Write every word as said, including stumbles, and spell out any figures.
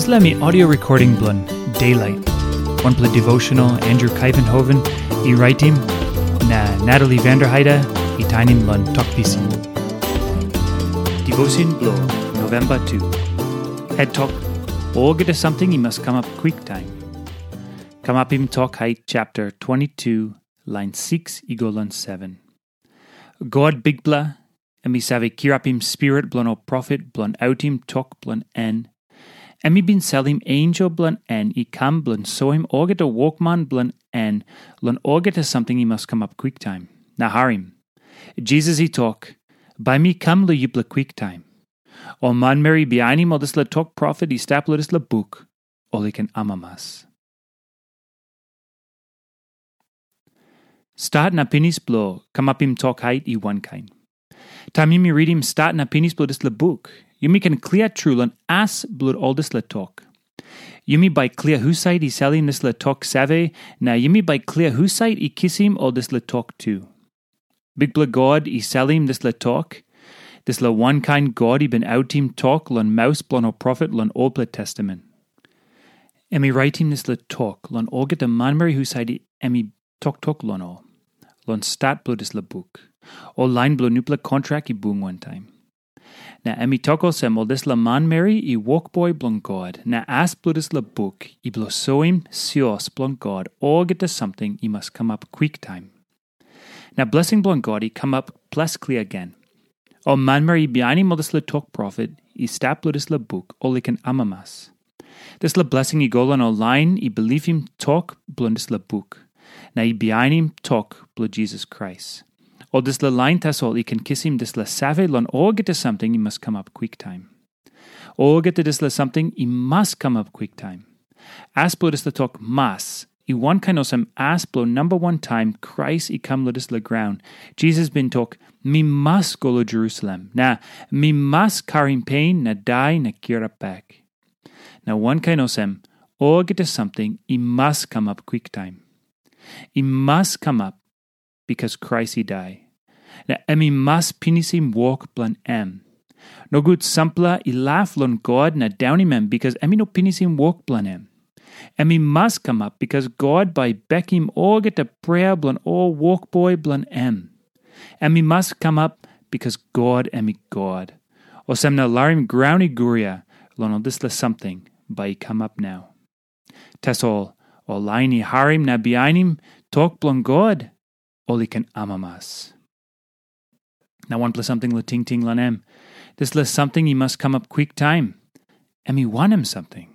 Dispela mi audio recording bilong Daylight, wanpela devotional Andrew Kaivenhoven i raitim, na Natalie Vanderheide i tainim long Tok Pisin. Devotion bilong November two. Het tok, olgeta samting i mas kamap kwiktaim. Kamapim Tok Hait chapter twenty-two, lain six i go long seven. God Bikpela, em i save kirapim spirit bilong ol profet bilong autim tok bilong en. Em i bin salim ensel bilong en i kam bilong soim olgeta wokman bilong en long olgeta samting i mas kamap kwiktaim. Na harim, Jisas i tok, "Bai mi kam long yupela kwiktaim." Ol manmeri i bihainim ol dispela tok profet i stap long dispela buk, ol i ken amamas. Stat na pinis bilong kamapim Tok Hait i wankain. Taim yumi ritim stat na pinis bilong dispela buk, yumi ken klia tru long as bilong ol dispela tok. Yumi bai klia husat i salim dispela tok save, na yumi bai klia husat i kisim ol dispela tok tu. Bikpela God i salim dispela tok, dispela wankain God i bin autim tok long maus bilong ol profet long Olpela Testamen. Em i raitim dispela tok long olgeta manmeri husat em i toktok long ol, long stat bilong dispela buk, ol lain bilong nupela kontrak i bung wantaim. Na em i tok olsem, ol dispela manmeri i wokboi bilong God, na as bilong dispela buk i bilong soim sios bilong God, olgeta samting i mas kamap kwiktaim. Na blesing bilong God i kamap ples klia gen. Ol manmeri i bihainim ol dispela tok profet i stap long dispela buk, ol i ken amamas. Dispela blesing i go long ol lain i bilipim tok bilong dispela buk, na i bihainim tok bilong Jisas Krais. Ol dispela lain tasol i ken kisim dispela save long olgeta samting i mas kamap kwiktaim. Olgeta dispela samting i mas kamap kwiktaim. As bilong dispela tok mas, i wankain olsem as bilong namba wan taim Krais i kam long dispela graun. Jisas bin tok, "Mi mas go long Jerusalem, na mi mas karim pen na dai na kirap bek." Na wankain olsem, olgeta samting i mas kamap kwiktaim. I mas kamap, bikas Krais i dai, na em i mas pinisim wok bilong em. Nogut sampela i laf long God na daunim em, bikas em i no pinisim wok bilong em. Em i mas kamap, bikas God bai i bekim olgeta prea bilong ol wokboi bilong em. Em i mas kamap, bikas God em i God. Olsem na larim graun i guria long ol dispela samting bai i kamap nau. Tasol ol lain i harim na bihainim tok bilong God, ol i ken amamas. Na wanpela samting long tingting long em. Dispela samting i mas kamap kwiktaim. Em i wanem samting?